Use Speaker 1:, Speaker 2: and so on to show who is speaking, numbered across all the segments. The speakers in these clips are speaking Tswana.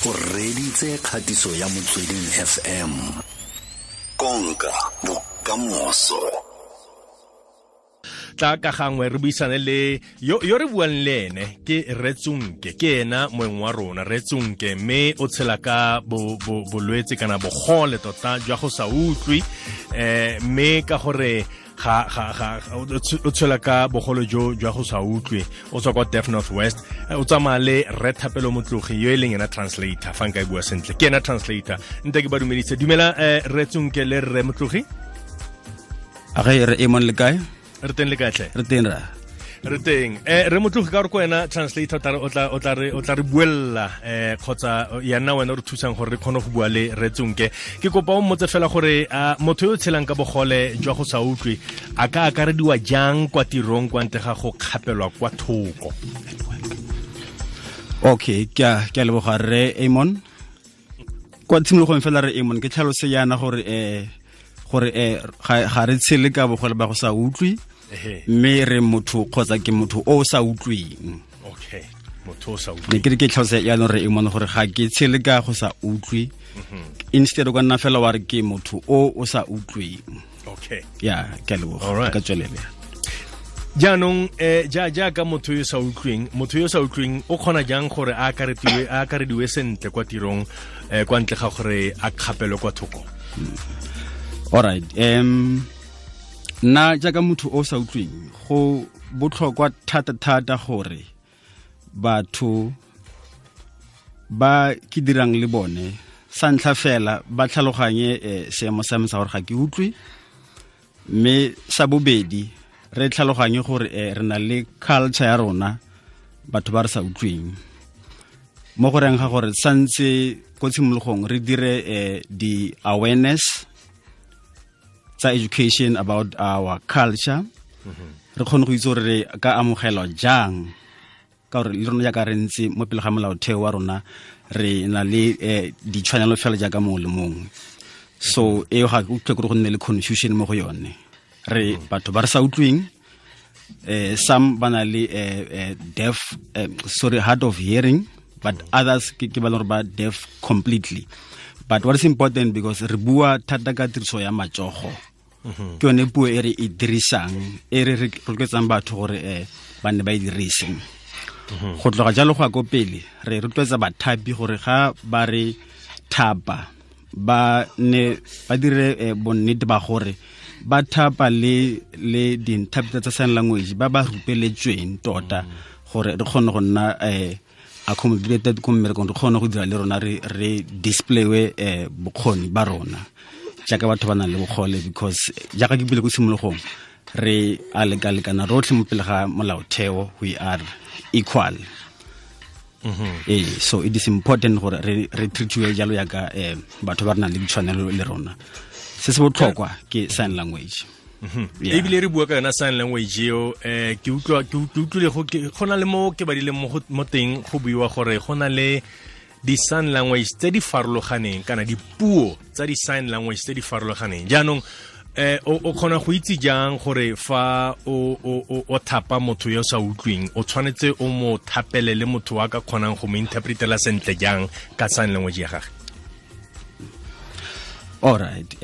Speaker 1: O reditse kgatiso ya Motsweding FM. Konka bokamoso.
Speaker 2: Tla ka gangwe re buisane le yo yo re buang le ene, ke Retsonke, ke ena moeng wa rona Retsonke, mme o tshela ka bolwetse kana bogole tota jwa go sa utlwe, mme ka gore ga ga ga o tshela ka bogolo jo jwa go sa utlwe, o tswa kwa Deaf North West, o tsamaya le Re Thapelo Motlogi yo e leng ena translator. Fa nka e bua sentle, ke ena translator. Nte ke ba dumedise. Dumela, Retsonke le Rre Motlogi.
Speaker 3: A ge re emon, le kae?
Speaker 2: Re teng, le kae tlhe?
Speaker 3: Re teng ra.
Speaker 2: Re teng. Re Motlogi, ka gore ko wena translator, o tla re buella, kgotsa ya nna wena o re thusang gore re kgone go bua le Retsonke. Ke kopa o mmotse fela gore motho yo o tshelang ka bogole jwa go sa utlwe a ka akarediwa jang kwa tirong kwa ntle ga go kgapelwa kwa thoko?
Speaker 3: Okay, ke a leboga, re Amon. Kwa tshimologong fela, re Amon, ke tlhalose yana gore ga re tshele ka bogole ba go sa utlwe, mme re motho kgotsa ke motho o sa utlweng.
Speaker 2: Okay, motho o sa
Speaker 3: Ne
Speaker 2: utlweng.
Speaker 3: Ke re ke tlhalose yaanong, re Amon, gore ga ke tshele ka go sa utlwe. Instead o ka nna fela wa re ke motho o o sa utlweng. Ya, ke a leboga. Ka tswelele.
Speaker 2: Jaanong ja jaaka motho yo sa utlweng, motho yo sa utlweng o kgona jang gore a akarediwe sentle kwa tirong, kwa ntle ga gore a kgapelwe kwa thoko?
Speaker 3: Alright, nna jaaka motho o sa utlweng, go botlhokwa thata thata gore batho ba ke dirang le bone, sa ntlha fela, ba tlhaloganye seemo sa me sa gore ga ke utlwe, mme sa bobedi, re tlhaloganye gore re na le culture ya rona, batho ba re sa utlweng, mo go reng ga gore santse ko tshimologong re dire di-awareness tsa education about our culture, re kgone go itse gore re ka amogelwa jang, ka gore le rona jaaka re ntse mo pele ga molaotheo wa rona, re na le ditshwanelo fela jaaka mongwe le mongwe. So eo ga ke utlwe gore go nne le confusion mo go yone. Re batho ba re sa utlweng, some ba na le deaf, sorry, hard of hearing, but others ke ba leng gore ba deaf completely. But what is important, because re bua thata ka tiriso ya matsogo, ke yone puo e re e dirisang, e re re rotloetsang batho gore ba nne ba e dirise. Go tloga jalo go ya ko pele, re rotloetsa bathapi gore ga ba re thapa, ba ne ba dire bonnete ba gore ba thapa le di-interpreter tsa sign language ba ba rupeletsweng tota, gore re kgone go nna accommodated ko mmerekong, re kgone go dira le rona, re displaye bokgoni ba rona jaaka batho ba nang le bogole, because jaaka ke bile ko tshimologong, re a lekalekana rotlhe mo pele ga molaotheo, we are equal. Ee, so it is important gore re treatiwe jalo yaka batho ba re nang le ditshwanelo le rona. Se se botlhokwa ke sign language. Yeah.
Speaker 2: Ebile re bua ka yona sign language eo, ke utlwa ke utlwile go na le mo ke badileng mo teng, go buiwa gore go na le di-sign language tse di farologaneng kana dipuo tsa di-sign language tse di farologaneng. Jaanong o kgona go itse jang gore fa o thapa motho yo sa utlweng, o tshwanetse o mo thapele le motho wa ka kgonang go mo interpretela sentle jang ka sign language ya gage?
Speaker 3: Alright,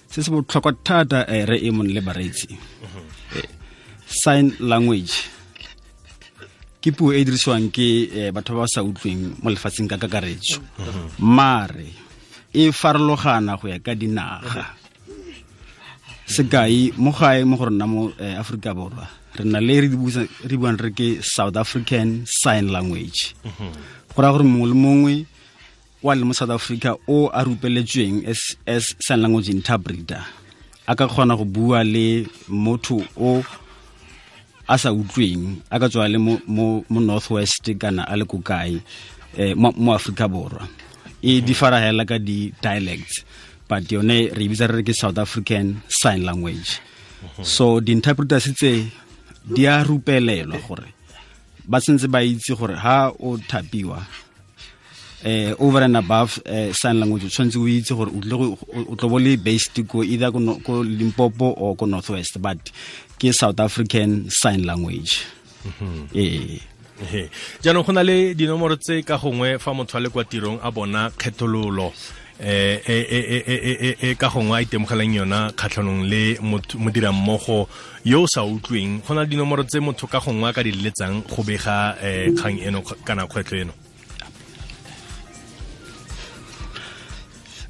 Speaker 3: se se botlhokwa thata, re e mong le bareetsi, sign language ke puo e e dirisiwang ke batho ba ba sa utlweng mo lefatsheng ka kakaretso, mare e farologana go ya ka dinaga. Sekai, mo gae mo go rona mo Aforika Borwa, re na le re buang re ke South African Sign Language. Go raya gore mongwe le mongwe wa le mo South Africa o a rupeletsweng as sign language interpreter a ka kgona go bua le motho o a sa utlweng, a ka tswa le mo North West kana a le ko kae mo Africa Borwa. E di fara hela ka di dialects, but yone re e bitsa re re ke South African Sign Language. So di-interpreters tse di a rupelelwa gore ba sentse ba itse gore ha o thapiwa, over and above sign language, o tshwanetse o itse gore o tlile o tlo bo le based ko either ko, ko Limpopo or ko North West, but ke South African Sign Language, ee.
Speaker 2: Jaanong go na le dinomoro tse ka gongwe fa motho a le kwa tirong a bona kgethololo e ka gongwe a itemogelang yona kgatlhanong le modirammogo yo o sa utlweng, go na le dinomoro tse motho ka gongwe a ka di leletsang go bega kgang eno kana kgwetlho eno?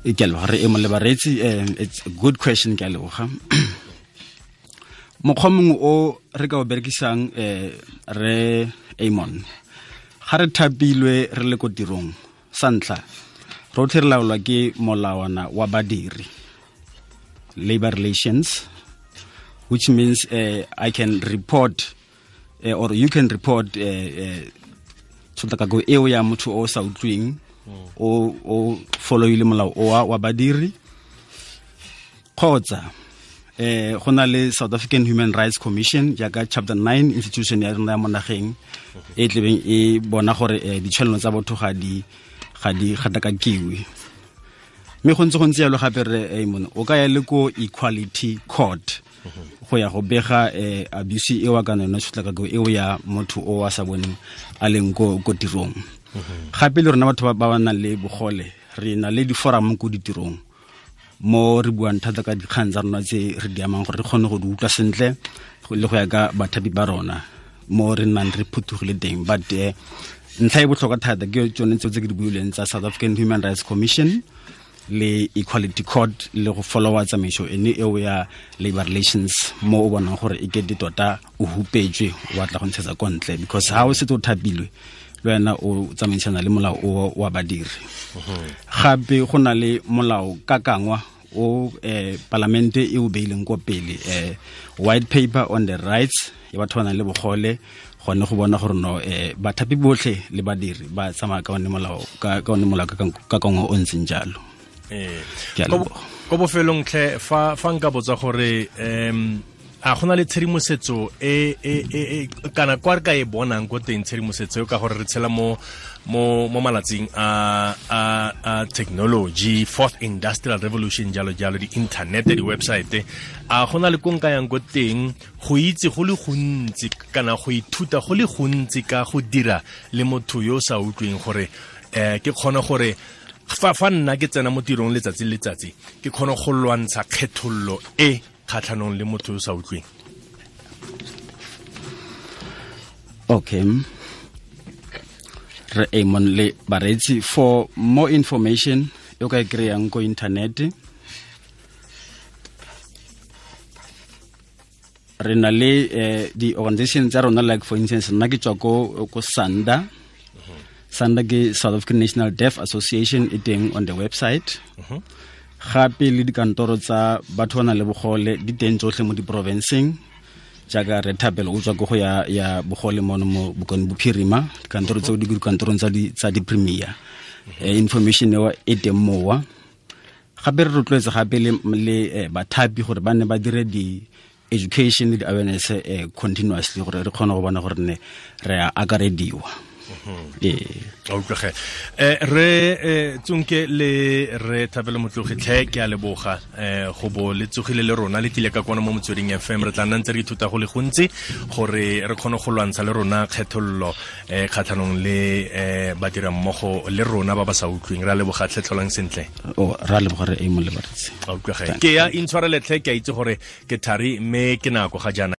Speaker 3: Ke a leboga re e le bareetsi. It's a good question, ke a leboga. Mokgwa mongwe o re ka o berekisang, re Amon, ga re thapilwe re le ko tirong, sa ntlha rotlhe re laolwa ke molawana wa badiri, labor relations, which means I can report or you can report tshotlakako eo ya motho o sa utlweng, o followile molao o wa badiri. Kgotsa go na le South African Human Rights Commission, jaaka chapter 9 institution ya rona ya mo nageng, e tlebeng e bona gore ditshwanelo tsa botho ga di gatakakiwe. Mme go ntse jalo gape re Amon, o ka ya le ko Equality Court go ya go bega abuse eo kana yona tshotlakako eo ya motho o a sa boneng a leng ko tirong. Gape le rona batho ba ba nang le bogole re na le di-forum ko ditirong mo re buang thata ka dikgang tsa rona tse re di amang, gore re kgone go di utlwa sentle le go ya ka bathapi ba rona mo re nnang re phuthugile teng. But ntlha e botlhokwa thata ke tsone tseo tse ke di buileng tsa South African Human Rights Commission le Equality Court, le go followa tsamaiso ene eo ya labor relations mo o bonang gore e kete tota o hupetswe, o batla go ntshetsa ko ntle, because ha o setse o thapilwe le wena o tsamaisana le molao o wa badiri. Gape go na le molao kakangwa o palamente e o beileng ko pele, white paper on the rights ya batho ba nang le bogole, gone go bona gore no bathapi botlhe le badiri ba tsamaya ka one molao ka one molao kakangwa o ntseng jalo.
Speaker 2: Ko bofelong tlhe, fa nka botsa gore a gona le tshedimosetso e kana kwa re ka e bonang ko teng tshedimosetso ka gore re tshela mo malatsing a technology, fourth industrial revolution, jalo jalo, di-internet, di-website, a gona le ko nka yang ko teng go itse go le gontsi kana go ithuta go le gontsi ka go dira le motho yo o sa utlweng, gore ke kgone gore fa nna ke tsena mo tirong letsatsi le letsatsi ke kgone go lwantsha kgethollo e kgatlhanong le motho yo sa utlweng?
Speaker 3: Okay, re Amon le bareetsi, for more information o ka e kry-ang ko internet, re na le di-organization tsa rona, like for instance nna ke tswa ko SANDA. SANDA ke South African National Deaf Association, e teng on the website. Gape le dikantoro tsa batho ba nang le bogole di teng tsotlhe mo diporofenseng, jaaka re Thapelo o tswa ko go ya bogole mono mo Bokone Bophirima, dikantoro tseo di dikantorong tsa di-premier. Information eo e teng mowa. Gape re rotloetsa gape le bathapi gore ba nne ba dire di-education le di-awareness continuously, gore re kgone go bona gore ne re a akarediwa.
Speaker 2: Utlwege re Tsonke le re Thapelo Motlogi tlhe, ke a leboga go bo le tsogile le rona le tlile ka kwana mo Motsweding FM. Re tla nna ntse re ithuta go le gontsi gore re kgone go lwantsha le rona kgethollo kgatlhanong le badirammogo le rona ba ba sa utlweng. Re a leboga tlhe, tlholang sentle.
Speaker 3: Re a leboga re Amon le bareetsi.
Speaker 2: Utlwege ke ya intshwarele tlhe, ke a itse gore ke thari mme ke nako ga jaana.